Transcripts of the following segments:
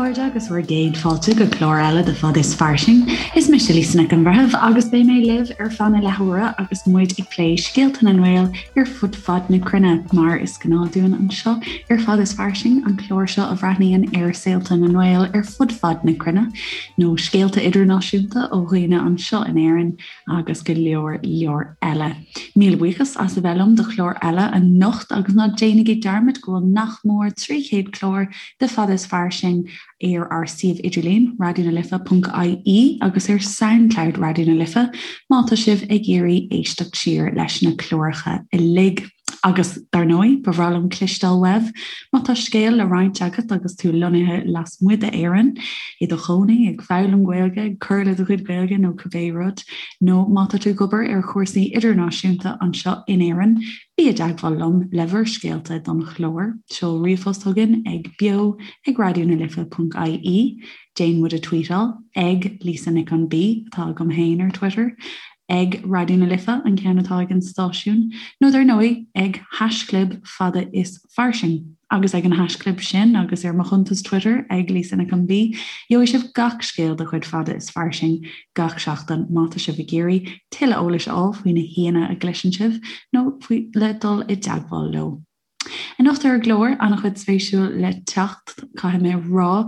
chairde agus bhur gcéad fáilte go clár eile de Fad is Fairsing. Is mise Lisa Nic an Bhreithimh agus beidh mé libh ar feadh na leathuaire agus muid ag plé scéalta na nGael ar fud fad na cruinne, mar is gnáth dúinn anseo ar Fad is Fairsing, an clár seo a bhreathnaíonn ar saolta na nGael ar fud fad na cruinne, nó scéalta idirnáisiúnta ó dhaoine anseo in Éirinn agus go leor leor eile. Míle buíochas as a bheith liom do chlár eile anocht agus ná déanaigí dearmad go bhfuil nach mór 300 clár de Fad is Fairsing ar ár suíomh idirlín, raidionalife.ie agus ar Soundcloud Raidió na Life má tá sibh ag iarraidh éisteacht siar leis na cláracha uilig. Agus, dar ndóigh, ba bhreá liom cloisteáil uaibh má tá scéal le roinnt agat agus tú lonnaithe lasmuigh d'Éirinn, i do chónaí, ag foghlaim Gaeilge, ag cur le do chuid Gaeilge nó cibé rud, nó má tá tú ag obair ar chúrsaí idirnáisiúnta anseo in Éirinn, Bí i dteagmháil liom le bhur scéalta don chlár. Seol ríomhphost chugainn ag beo ag raidionalife.ie, déan muid a tweetáil ag Lisa Nic an B atá agam féin ar Twitter, ag Raidió na Life an ceann atá ag an stáisiún, nó dar ndóigh ag haischlib fada is fairsing. Agus ag an haischlib sin agus ar mo chuntas Twitter ag Lisa Nic an B, gheobhaidh sibh gach scéal de chuid Fada is Fairsing gach seachtain má tá sibh ag iarraidh tuilleadh eolais a fháil faoi na haíonna a gcloiseann sibh nó faoi le dul i dteagmháil leo. Anocht ar an gclár, an-chuid spéisiúil le teacht, caithfidh mé a rá.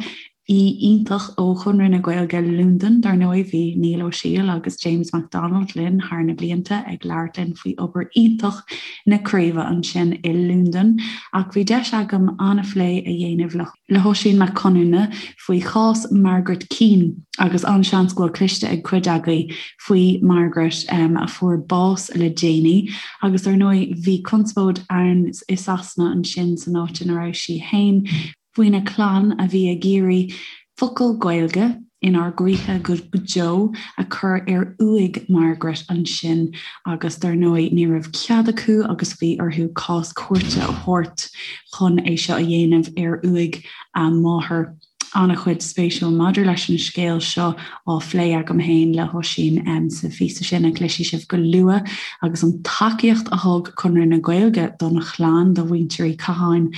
Aoi iontach ó Chonradh na Gaeilge Londain, dar ndóigh. Bhí Niall Ó Siadhail agus James McDonald linn thar na blianta ag labhairt linn faoi obair iontach na craoibhe ansin i Londain. Ach bhí deis agam an-phlé a dhéanamh le le hOisín Mac Conamhna faoi chás Margaret Keane agus an-seans go bhfuil cloiste ag cuid agaibh faoi Margaret a fuair bás le déanaí. Agus dar ndóigh bhí conspóid ann i Sasana ansin san áit ina raibh sí féin. faoina clann a bhí ag iarraidh focal Gaeilge inár gcroíthe go deo a chur ar uaigh Margaret ansin agus dar ndóigh ní raibh cead acu agus bhí orthu cás cúirte a thabhairt chun é seo a dhéanamh ar uaigh a máthar. An-chuid spéisiúil maidir leis an scéal seo á phlé agam féin le hOisín sa phíosa sin a chloisfidh sibh go luath agus an tacaíocht a thug Conradh na Gaeilge don chlann, do mhuintir Uí Chatháin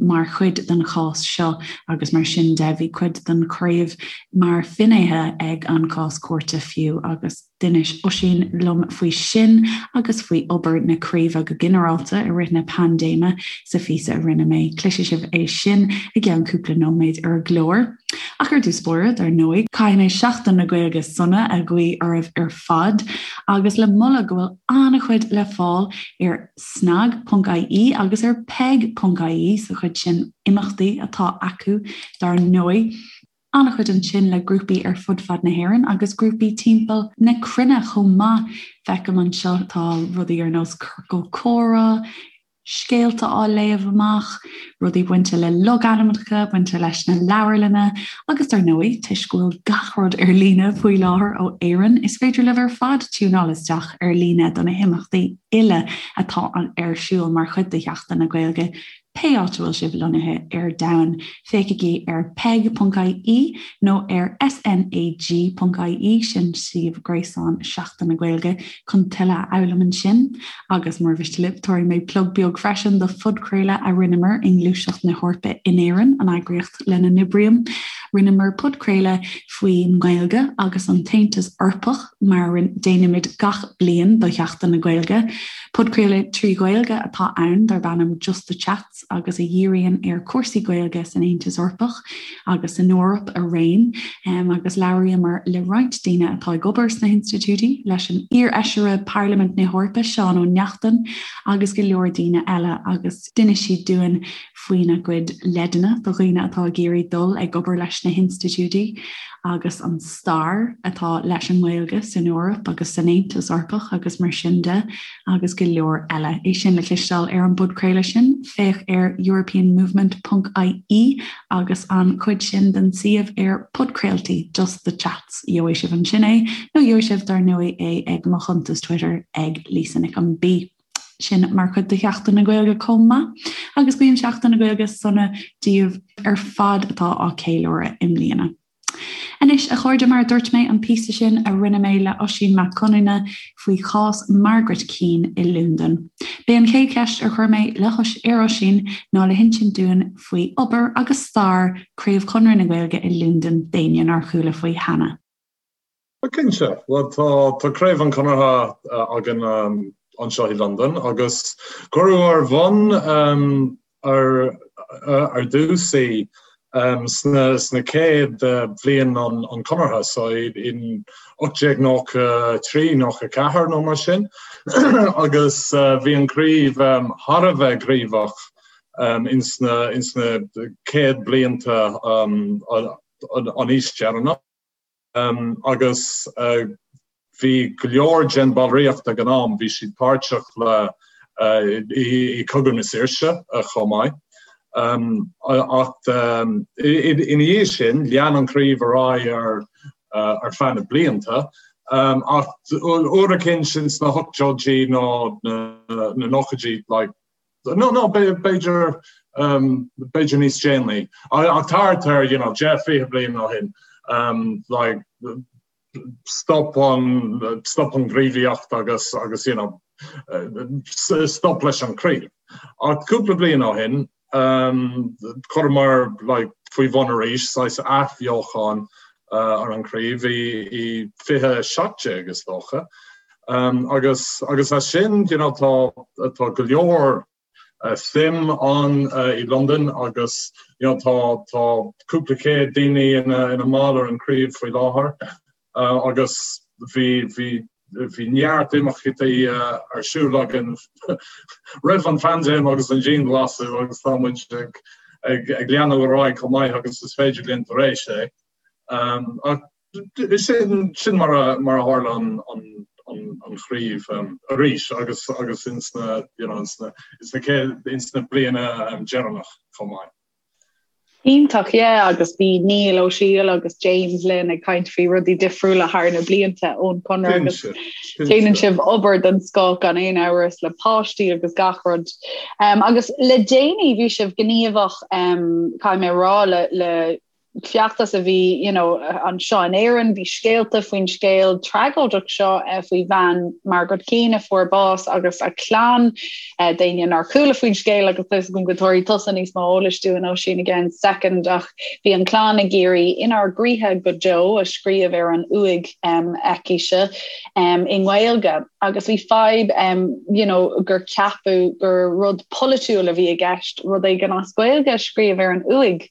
mar chuid den chás seo agus mar sin de bhí cuid den chraobh mar finnéithe ag an chás cúirte fiú agus d'inis Oisín liom faoi sin agus faoi obair na craoibhe go ginearálta i rith na paindéime sa phíosa a rinne mé. Cloisfidh sibh é sin i gceann cúpla nóiméad ar an gclár. Ach ar dtús báire, dar ndóigh, caithfidh mé Seachtain na Gaeilge sona a ghuí oraibh ar fad agus le moladh go bhfuil an-chuid le fáil ar snag.ie agus ar peig.ie sa chuid sin imeachtaí atá acu dar ndóigh. An-chuid ansin le grúpaí ar fud fad na hÉireann agus grúpaí timpeall na cruinne chomh maith. Feicim anseo tá rudaí ar nós ciorcal comhrá, scéalta á léamh amach, rudaí bainte le logainmneacha, bainte leis na leabharlanna agus dar ndóigh, toisc go bhfuil gach rud ar líne faoi láthair ó Éirinn, is féidir libh ar fad tiúnáil isteach ar líne do na himeachtaí uile atá ar siúl mar chuid de Sheachtain na Gaeilge pé áit a bhfuil sibh lonnaithe ar domhan. Féachaigí ar peig.ie nó ar snag.ie, sin suíomh gréasáin Sheachtain na Gaeilge, chun tuilleadh a fhoghlaim ansin. Agus mura mhiste libh, tabharfaidh mé plug beag freisin do phodchraoladh a rinneamar i nGluaiseacht na hEorpa in Éirinn, an eagraíocht lena n-oibrím. Rinneamar podchraoladh faoin nGaeilge agus an tAontas Eorpach, mar a déanaimid gach bliain do Sheachtain na Gaeilge. Podchraoladh 3 Ghaeilge atá ann darb ainm Just the Chats agus a dhíríonn ar chúrsaí Gaeilge san Aontas Eorpach agus san Eoraip araon agus labhraíomar le roinnt daoine atá ag obair sna hinstitiúidí, leis an iar-fheisire Parlaimint na hEorpa Seán Ó Neachtain agus go leor daoine eile agus d'inis siad dúinn faoina gcuid leideanna do dhaoine atá ag iarraidh dul ag obair leis na hinstitiúidí agus an stair atá leis an nGaeilge san Eoraip agus san Aontas Eorpach agus mar sin de agus go leor eile. É sin le cloisteáil ar an bpodchraoladh sin, féach ar europeanmovement ponc ie agus an chuid sin den suíomh ar podchraoltaí Just the Chats. Gheobhaidh sibh ansin é nó gheobhaidh sibh dar ndóigh é ag mo chuntas Twitter ag Lisa Nic an B. Sin mar chuid de Sheachtain na Gaeilge chomh maith agus guím Seachtain na Gaeilge sona daoibh ar fad atá á ceiliúradh i mbliana. Anois, a chairde, mar a dúirt mé, an píosa sin a rinne mé le Oisín Mac Conamhna faoi chás Margaret Keane i Londain. B'é an chéad cheist a chuir mé le ar Oisín ná le hinsint dúinn faoi obair agus stair Craobh Chonradh na Gaeilge i Londain d'éinne nár chuala faoi cheana. Cinnte. Bhuel, tá tá Craobh an Chonartha againn anseo i Londain agus cuireadh ar bhun ar ar dtús í sna sna céad bhliain an an Chonartha, so in 1893, 94 nó mar sin agus bhí an chraobh thar a bheith gníomhach ins na ins na céad blianta an aois deireanach. Agus bhí go leor den bhallraíocht ag an am, bhí siad páirteach le i Cogadh na Saoirse chomh maith. Ach ina dhiaidh sin, lean an chraobh ar aghaidh ar ar feadh na blianta. Ach uair eicínt ins na hochtóidí nó na nóchaidí, like, No, no, b'fhéidir, b'fhéidir níos déanaí. Ach thart ar, you know, 10, 20 bliain ó shin, like, stop an, stop an ghníomhaíocht agus, agus, you know, stop leis an chraobh. Ach cúpla bliain ó shin, chuireamar, like, faoi bhun arís, saghas athbheochan ar an chraobh i, i 2017, is dócha. Agus agus as sin, you know, tá tá go leor suim ann i Londain agus, you know, tá tá cúpla céad daoine ina ina mball ar an chraobh faoi láthair agus bhí bhí bhí neart imeachtaí ar siúl againn roimh an phaindéim agus an dianghlasáil agus tá muid ag ag ag leanadh ar aghaidh chomh maith agus is féidir linn tar éis é. Ach Sin sin mar a mar a tharla an an an an chraobh arís agus agus ins na you know ins na ins na céad ins na bliana deireanach chomh maith. Iontach, yeah, agus bhí Neil Ó Siail agus James linn ag caint faoi rudaí difriúla thar na blianta ón Chonradh agus déanann sibh obair den scoth gan aon amhras le páistí agus gach rud. Um, agus le déanaí bhí sibh gníomhach um, caithfidh mé rá le, le feachtas a bhí you know, anseo in Éirinn, bhí scéalta faoin scéal tragóideach seo eh, faoi bhean Margaret Keane a fuair bás agus a clann eh, d'éinne nár chuala faoin scéal agus tá a fhios agam go dtabharfaidh tusa níos mó eolais dúinn Oisín i gceann soicind ach bhí an clann ag iarraidh inár gcroíthe go deo a scríobh ar an uaigh um, aicise um, i nGaeilge agus bhí fadhb um, you know, gur ceapadh gur rud polaitiúil a bhí i gceist rud éigin as Gaeilge a scríobh ar an uaigh.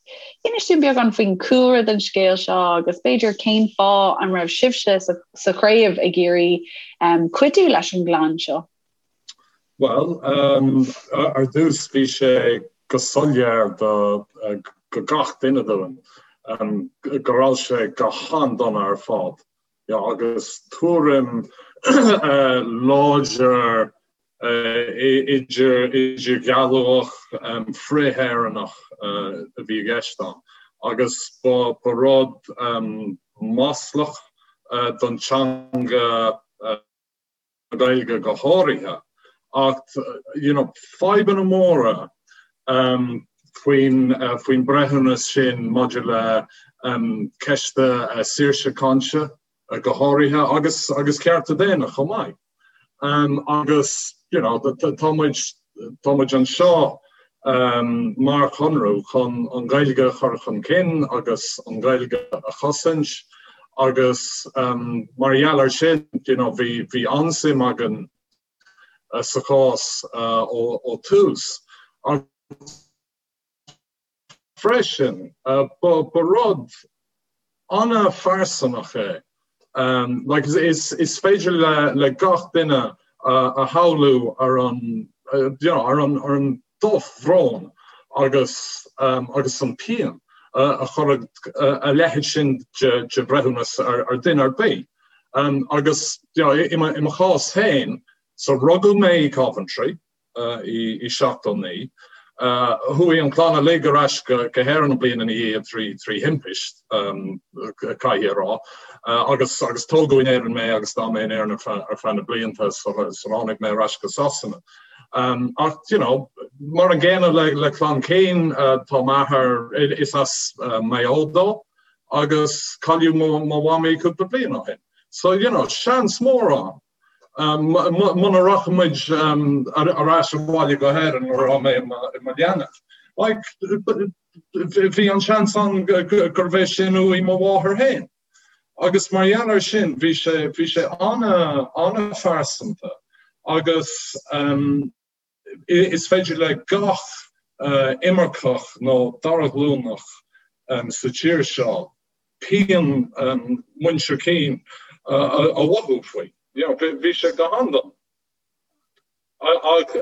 Inis dúinn beagán faoin cúlra den scéal seo agus b'fhéidir cén fáth an raibh sibhse sa chraobh ag iarraidh cuidiú leis an gclann seo? Bhuel, ar dtús bhí sé go soiléir do go gach duine dúinn go raibh sé go han-dona ar fad. Agus tuairim láidir idirdhealaitheach frith-Éireannach a bhí i gceist ann agus ba rud maslach don teanga na Gaeilge go háirithe ach you know fadhbanna móra faoin faoin breithiúnas sin maidir le ceist saoirse cainte go háirithe agus agus cearta daonna chomh maith. Agus you know tá muid tá muid anseo mar chonradh chun an Ghaeilge a chur chun cinn agus an Ghaeilge a chosaint agus mar gheall ar sin you know bhí bhí an-suim againn sa chás ó tús. Freisin, ba rud an-phearsanach é. Like, is féidir le gach duine a shamhlú ar an, you know, ar an, ar an drochbhrón agus, agus an pian a chuirfeadh a leithéid sin de bhreithiúnas ar duine ar bith. Agus, you know, i mo chás féin, so rugadh mé i Coventry, i 79. Chuaigh an chlann uilig ar ais go hÉirinn an bliain ina dhiaidh trí thimpist, caithfidh a rá, agus agus tógadh in Éirinn mé agus d'fhan mé in Éirinn ar feadh na blianta sular tháinig mé ar ais go Sasana. Ach, you know, mar an gcéanna le clann Keane, tá m'athair, is as Maigh Eo dó. Agus cailleadh mo mhamaí cúpla bliain ó shin. So, you know, seans mór ann. Muna rachaidh muid ar ais abhaile go hÉirinn nuair atá mé i mo leanbh. Like, bhí an seans ann gurbh é sin uaigh mo mháthair féin. Agus mar gheall air sin, bhí sé, bhí sé an-phearsanta agus is féidir le gach imirceach nó dara ghlúnach sa tír seo pian muintir Keane a mhothú faoi. You know, bhí sé go han-dona.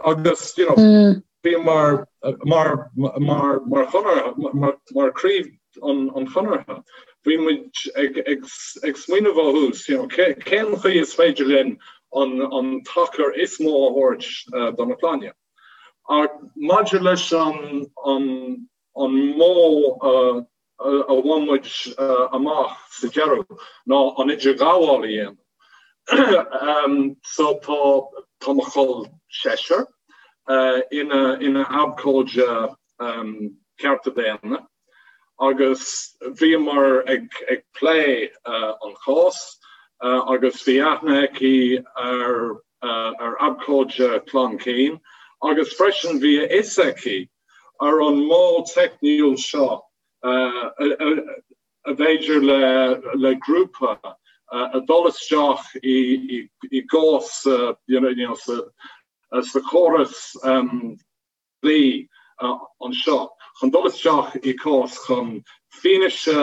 Agus, you know, bhí mar, mar, mar, mar chonartha, mar, mar chraobh an, an Chonartha, bhí muid ag, ag, ag smaoineamh ó thús, you know, cé, cén chaoi is féidir linn an, an tacar is mó a thabhairt do na clainne. Ach maidir leis an, an, an modh a bhain muid amach sa deireadh ná an idirghabháil a dhéanamh. So tá tá mo chol seisear ina ina abhcóide cearta daonna agus bhíomar ag ag plé an chás agus bhí aithne aici ar ar abhcóide Clann Keane agus freisin bhí a fhios aici ar an modh teicniúil seo a bhféidir le grúpa a dul isteach i gcás sa chóras dlí anseo chun dul isteach i gcás chun fianaise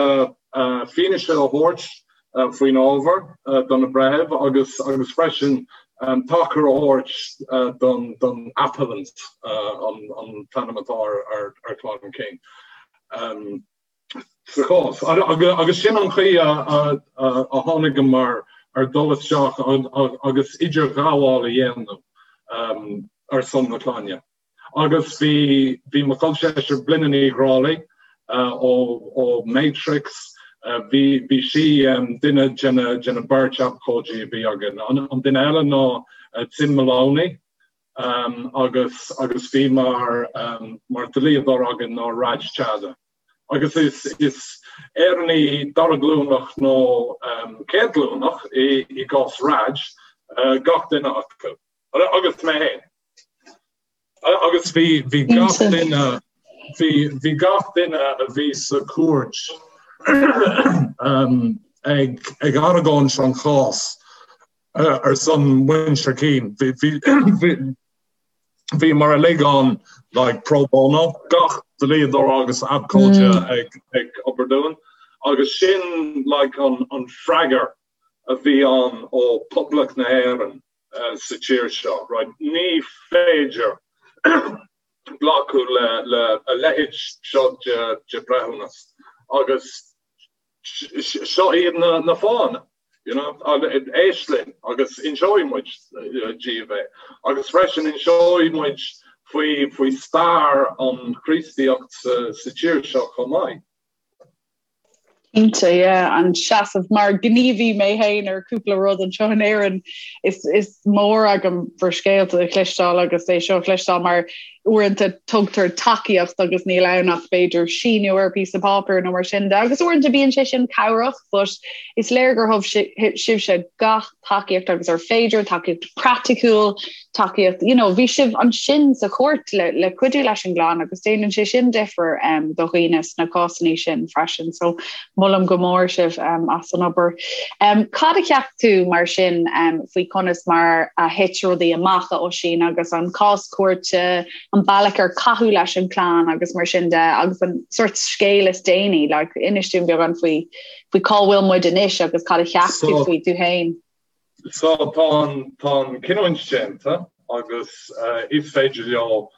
fianaise a thabhairt faoin ábhar do na breithimh agus agus freisin tacar a thabhairt don don appellant an t-ainm atá ar ar Chlann Keane sa chás. Agus sin an chaoi a a tháinigeamar ar dul isteach agus idirghabháil a dhéanamh ar son na clainne. Agus bhí, bhí mo chol seisear Blinne Ní Ghrálaigh ó, ó Matrix, bhí, bhí sí duine de na, de na beirt abhcóidí a bhí againn. An, an duine eile ná Tim Maloney agus, agus bhí mar, mar dlíodóir againn ná Raj Chadha. Agus is, is Éireannaigh dara glúnach nó céad glúnach i, i gcás Raj, gach duine acu. Agus mé féin. Agus bhí bhí gach duine bhí bhí gach duine a bhí sa chúirt ag ag argóint an chás ar son muintir Keane. Bhí bhí bhí bhíomar uilig ann like pro bono, gach dlíodóir agus abhcóide ag ag obair dúinn agus sin like an an freagar a bhí ann ó Poblacht na hÉireann. sa tír seo, right? Ní féidir glacadh le le a leithéid seo de de breithiúnas agus seo iad na na fáthanna, you know, éist linn agus inseoidh muid díobh é. Agus freisin inseoidh muid faoi faoi stair an Chríostaíocht sa sa tír seo chomh maith. Cinnte, yeah, an seasamh mar gníomhaí mé féin ar cúpla rud anseo in Éirinn is, is mór agam bhur scéalta a chloisteáil agus é seo a chloisteáil mar uaireanta tugtar tacaíocht agus níl ann ach b'fhéidir síniú ar píosa páipéir nó mar sin de agus uaireanta bíonn sé sin cabhrach but is léir gur thug sibhse gach tacaíocht agus ar féidir, tacaíocht praiticiúil, tacaíocht, you know, bhí sibh ansin sa chúirt le, le cuidiú leis an gclann agus déanann sé sin difear um, do dhaoine sna cásanna sin freisin, so molaim go mór sibh um, as an obair. Um, cad a cheap tú mar sin um, faoi conas mar a thit rudaí amach a Oisín agus an cás cúirte, an bealach ar caitheadh leis an clann agus mar sin de agus an sort scéal is déanaí, like, inis dúinn beagán faoi faoi cá bhfuil muid anois agus cad a cheap tú faoi tú féin. So tá an tá an cinniúint déanta agus is féidir leo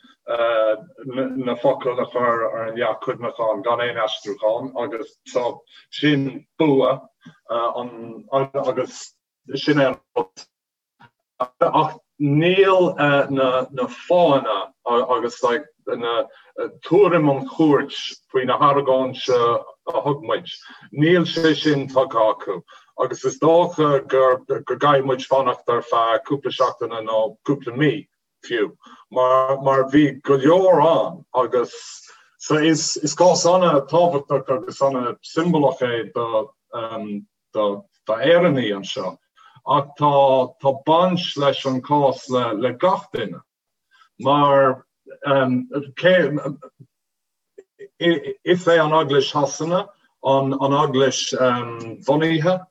na focail a chur ar an leac cuimhneacháin gan aon aistriúchán agus so sin bua an agus sin é an rud Ach níl na fáthanna agus na tuairim an chúirt faoi na hargóint a thug muid, níl sé sin tugtha acu agus is dócha go gcaithfidh muid fanacht ar feadh cúpla seachtaine nó cúpla mí fiú mar bhí go leor ann agus. So is is cás an-tábhachtach agus an-siombalach é do do d'Éireannaigh anseo ach tá tá baint leis an cás le le gach duine mar cé Is é an Eaglais Shasana an eaglais bhunaithe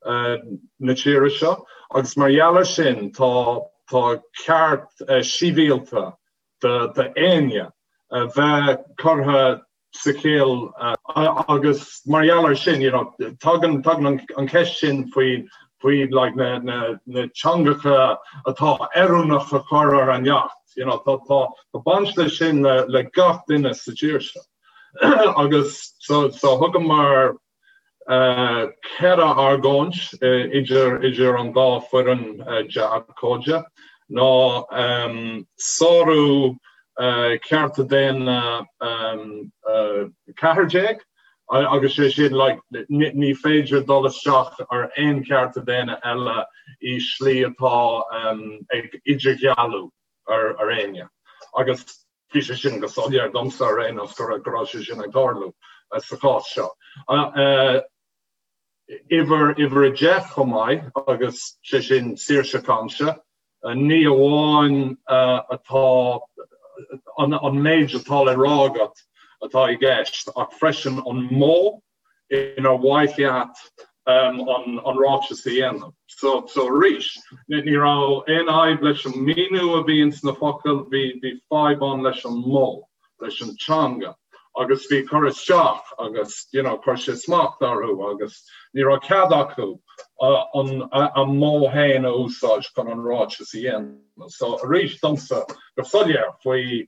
na tíre seo agus mar gheall ar sin tá tá ceart sibhialta d'éinne a bheith curtha sa chill agus mar gheall ar sin you know tagann tagann an cheist sin faoi faoi like na na na teangacha atá oiriúnach a chur ar an leacht. You know, tá tá tá baint leis sin le le gach duine sa tír seo. Agus so so thugamar eh ceithre argóint idir idir an dá foireann de abhcóide ná ehm sárú eh cearta daonna ehm 14 agus sé sin like ní féidir dul isteach ar aon chearta daonna eile i slí atá ag idirdhealú ar éinne. Agus bhí sé sin go soiléir domsa ar aon nós go raibh sé sin ag tarlú sa chás seo. Uimhir uimhir 10 chomh maith agus sé sin saoirse cainte. Ní amháin atá an méid atá le rá agat atá i gceist ach freisin an modh inar mhaith leat an ráiteas a dhéanamh. So arís, ní raibh aon fhadhb leis an míniú a bhí ins na focail, bhí fadhb ann leis an modh. leis an teanga agus bhí cur isteach agus you know chuir sé smacht orthu agus ní raibh cead acu an a modh féin a úsáid chun an ráiteas a dhéanamh. So arís domsa go soiléir faoi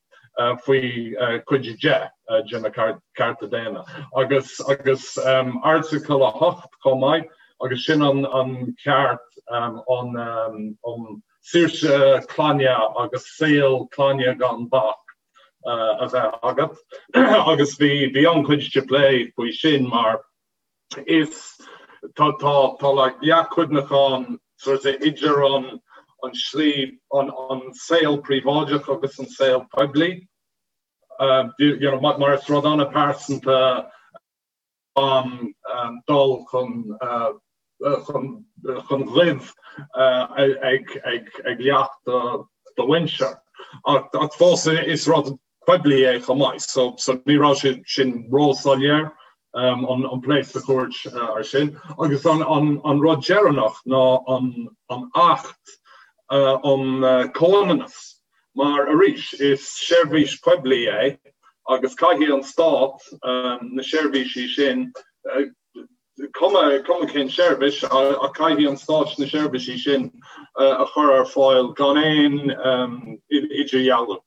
faoi cuid 10 de na cearta daonna agus agus Airteagal 8 chomh maith agus sin an an ceart an um saoirse clainne agus saol clainne gan bac a bheith agat agus bhí bhí an-chuid de plé faoi sin mar is tá tá tá like leacht cuimhneacháin sort of idir an an slí an an saol príobháideach agus an saol poiblí you know mar is rud an-pearsanta an dul chun chun goimh ag leacht do mhuintir. Ach fós is rud poiblí é chomh maith, so ní raibh sé sin róshoiléir an plé sa chúirt ar sin. Agus an rud deireanach ná an Acht um Comhionannas. Mar, arís, is seirbhís poiblí é agus caithfidh an Stát na seirbhísí sin, cuma cén seirbhís, ach caithfidh an Stát na seirbhísí sin a chur ar fáil gan aon idirdhealú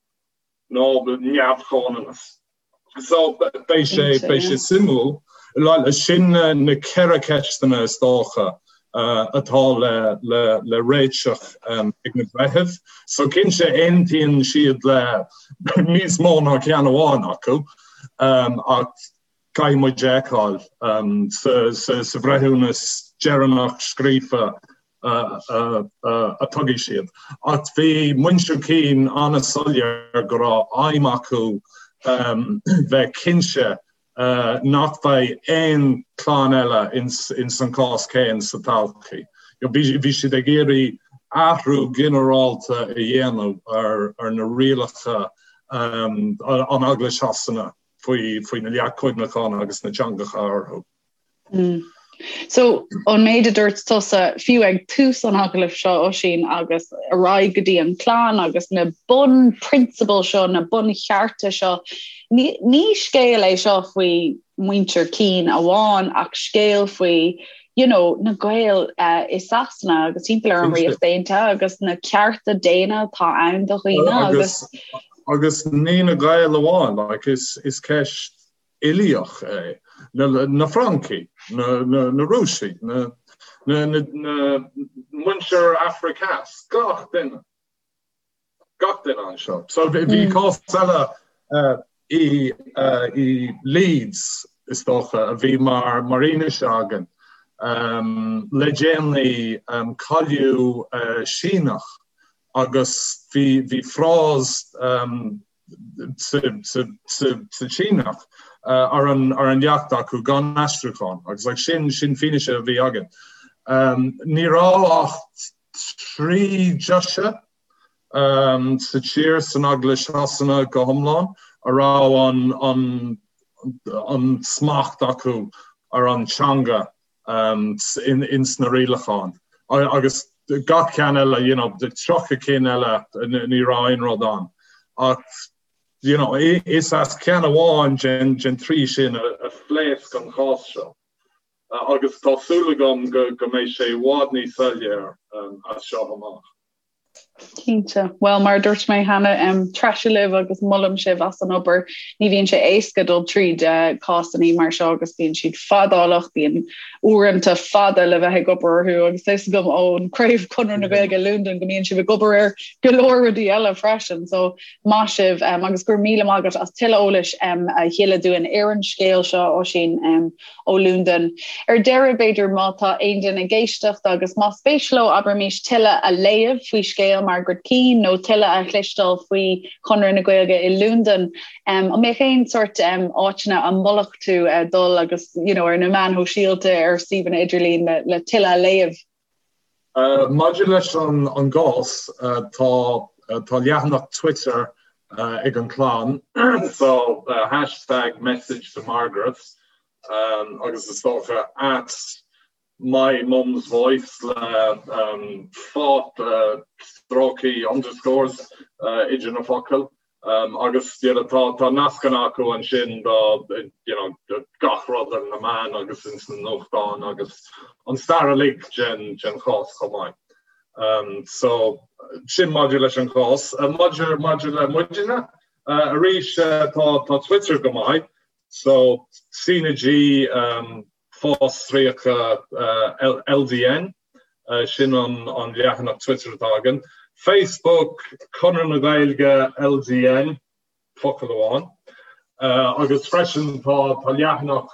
nó neamh-chomhionannas. So beidh sé beidh sé suimiúil. Sin na ceithre ceisteanna is dócha atá le le le réiteach ag na breithimh. So cinnte aontaíonn siad le níos mó ná ceann amháin acu ach caithfidh muid a fheiceáil sa sa bhreithiúnas deireanach scríofa a tugadh siad. Ach bhí muintir Keane an-soiléir go raibh aidhm acu bheith cinnte nach mbeidh aon chlann eile ins an cás céanna sa todhchaí. Bhí siad ag iarraidh athrú ginearálta a dhéanamh ar na rialacha an Eaglais Shasana faoi na leacht cuimhneacháin agus na teangacha orthu. Mm. So an méid a dúirt tusa fiú ag tús an agallaimh seo Oisín agus ar aghaidh go dtí an clann agus na bunphrionsabail seo, na bunchearta seo, ní, ní scéal é seo faoi muintir Keane amháin ach scéal faoi you know, na Gaeil uh, i Sasana agus timpeall ar an Ríocht Aontaithe agus na cearta daonna atá ann do dhaoine agus agus ní na Gaeil amháin, like, is, is ceist uilíoch é, na Francaigh, na Rúisigh, na muintir Afraic Theas, gach duine, gach duine anseo. So bhí cás eile i Leeds, is dócha, a bhí mar fhianaise againn le déanaí, cailleadh Síneach agus bhí frás. sa tSíneach ar an leacht acu gan aistriúchán agus like sin sin fianaise a bhí againn. Ní raibh ach 3 deoise sa tír san Eaglais Shasana go hiomlán a raibh an an smacht acu ar an teanga ins na rialacháin agus gach ceann eile, you know, 30 cinn eile ní raibh aon rud ann. Ach, you know, is as ceann amháin den den trí sin a phléasc an chás seo. Agus tá súil agam go go mbeidh sé i bhfad níos soiléir as seo amach. Cinnte. Bhuel, mar a dúirt mé cheana, treise libh agus molaim sibh as an obair. Ní bhíonn sé éasca dul tríd cásanna mar seo agus bíonn siad fadálach, bíonn uaireanta fada le bheith ag obair orthu agus tá a fhios agam ón Craobh Conradh na Gaeilge i Londain go mbíonn sibh ag obair ar go leor rudaí eile freisin. So maith sibh agus go raibh míle maith agat as tuilleadh eolais a thuilleadh dúinn ar an scéal seo, Oisín. ó Londain. Ar deireadh, b'fhéidir, má tá aon duine ag éisteacht agus más spéis leo, abraimis, tuilleadh a léamh faoi scéal Margaret Keane nó tuilleadh a chloisteáil faoi Chonradh na Gaeilge i Londain, an mbeadh aon sórt áiteanna a mholfadh tú dul agus, you know, ar na meáin shóisialta, ar suíomhanna idirlín le, le tuilleadh a léamh? Maidir leis an gcás, tá tá leathanach Twitter ag an chlann, so hashtag message to Margaret agus is dócha at my mum's voice le fáth stróicí underscores idir na focail. Agus you know tá tá nascanna acu ansin do you know do gach rud ar na meáin agus ins na nuachtáin agus an stair uilig den den chás chomh maith. So sin maidir leis an chás. Maidir maidir le muidne arís tá tá Twitter go maith so CnaG fostríoca LDN, sin an leathanach Twitter atá againn. Facebook, Conradh na Gaeilge LDN, focal amháin. Agus freisin tá leathanach,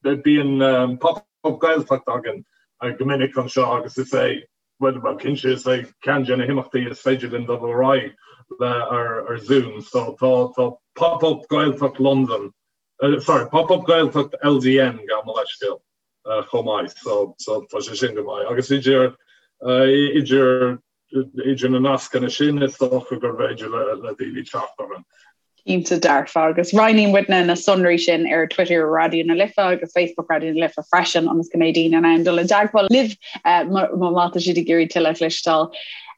bíonn Pop Up Gaeltacht againn go minic anseo agus is é, bhuel cinnte is é ceann de na himeachtaí is féidir linn dul ar aghaidh le ar Zoom. So tá Pop Up Gaeltacht Londain Sorry, Pop Up Gaeltacht LDN gabh mo leithscéal chomh maith so so tá sé sin go maith agus idir idir idir na nascanna sin is dócha gur féidir le le daoine teacht orainn. Cinnte dearfa agus roinnfidh muidne na sonraí sin ar Twitter Raidió na Life agus Facebook Raidió na Life freisin ionas go mbeidh daoine in ann dul i dteagmháil libh má tá siad ag iarraidh tuilleadh a chloisteáil.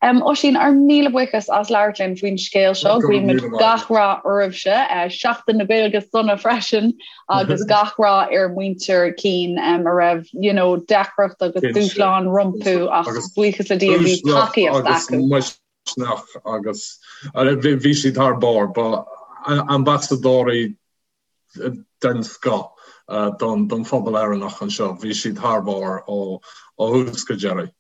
Oisín, ár míle buíochas as labhairt linn faoin scéal seo. Guímid gach rath oraibhse. Seachtain na Gaeilge sona freisin agus gach rath ar mhuintir Keane a raibh you know, deacracht agus dúshlán rompu ach buíochas le Dia bhí tacaíocht acu. Misneach agus bhí siad thar barr, ba ambasadóirí den scoth don phobal Éireannach anseo. Bhí siad thar barr ó thús go deireadh.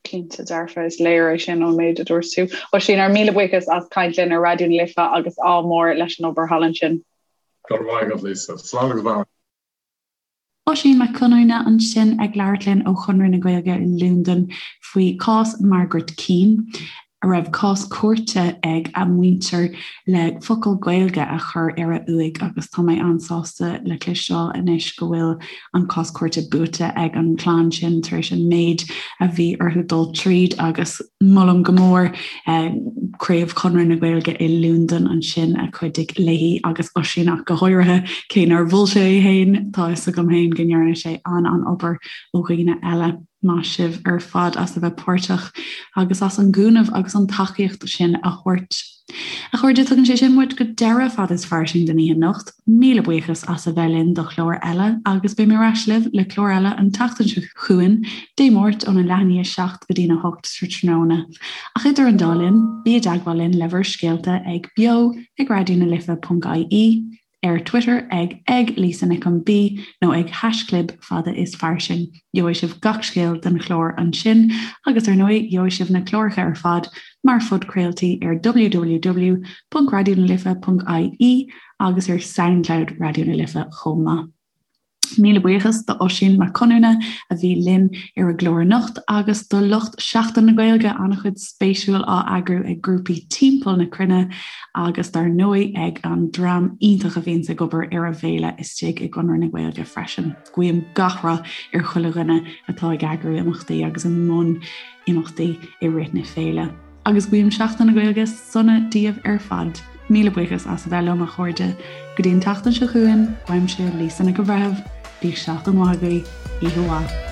Cinnte dearfa, is léir é sin ón méid a dúirt tú. Oisín, ár míle buíochas as caint linn ar Raidió na Life agus ádh mór leis an obair thallann sin. Go raibh maith agat, Lisa. Slán agus beannacht. Oisín Mac Conamhna ansin ag labhairt linn ó Chonradh na Gaeilge i Londain faoi chás Margaret Keane, a raibh cás cúirte ag a muintir le focal Gaeilge a chur ar a uaigh agus tá mé an-sásta le cloisteáil anois go bhfuil an cás cúirte buaite ag an chlann sin tar éis an méid a bhí orthu dul tríd agus molaim go mór Craobh Chonradh na Gaeilge i Londain ansin a chuidigh léi agus Oisín ach go háirithe, cé nár mhol sé é féin, tá fhios agam féin go ndearna sé an-an-obair ó dhaoine eile. Maith sibh ar fad as a bheith páirteach agus as an gcúnamh agus an tacaíocht sin a thabhairt. A chairde, tugann sé sin muid go deireadh Fad is Fairsing don oíche anocht. Míle buíochas as a bheith linn do chlár eile agus beidh mé ar ais libh le clár eile an tseachtain seo chugainn, Dé Máirt óna leath i ndiaidh a 7 go dtína 8 tráthnóna. Ach idir an dá linn, bí i dteagmháil linn le bhur scéalta ag beo ag raidionalife.ie, ar Twitter ag ag Lisa Nic an B nó ag haischlib fada is fairsing. Gheobhaidh sibh gach scéal den chlár ansin agus ar ndóigh gheobhaidh sibh na cláracha ar fad mar phodchraoltaí ar www.raidionalife.ie agus ar Soundcloud Raidió na Life chomh maith. Míle buíochas do Oisín Mac Conamhna a bhí linn ar an gclár anocht agus do lucht Seachtain na Gaeilge, an-chuid spéisiúil á eagrú ag grúpaí timpeall na cruinne agus dar ndóigh ag an dream iontach a bhíonns ag obair ar an bhféile istigh i gConradh na Gaeilge freisin. Guím gach rath ar chuile dhuine atá ag eagrú imeachtaí agus i mbun imeachtaí i rith na féile. Agus guím Seachtain na Gaeilge sona daoibh ar fad. Míle buíochas as a bheith liom a chairde. Go dtí an tseachtain seo chugainn, uaimse Lisa Nic an Bhreithimh, bíodh seachtain mhaith agaibh, oíche mhaith.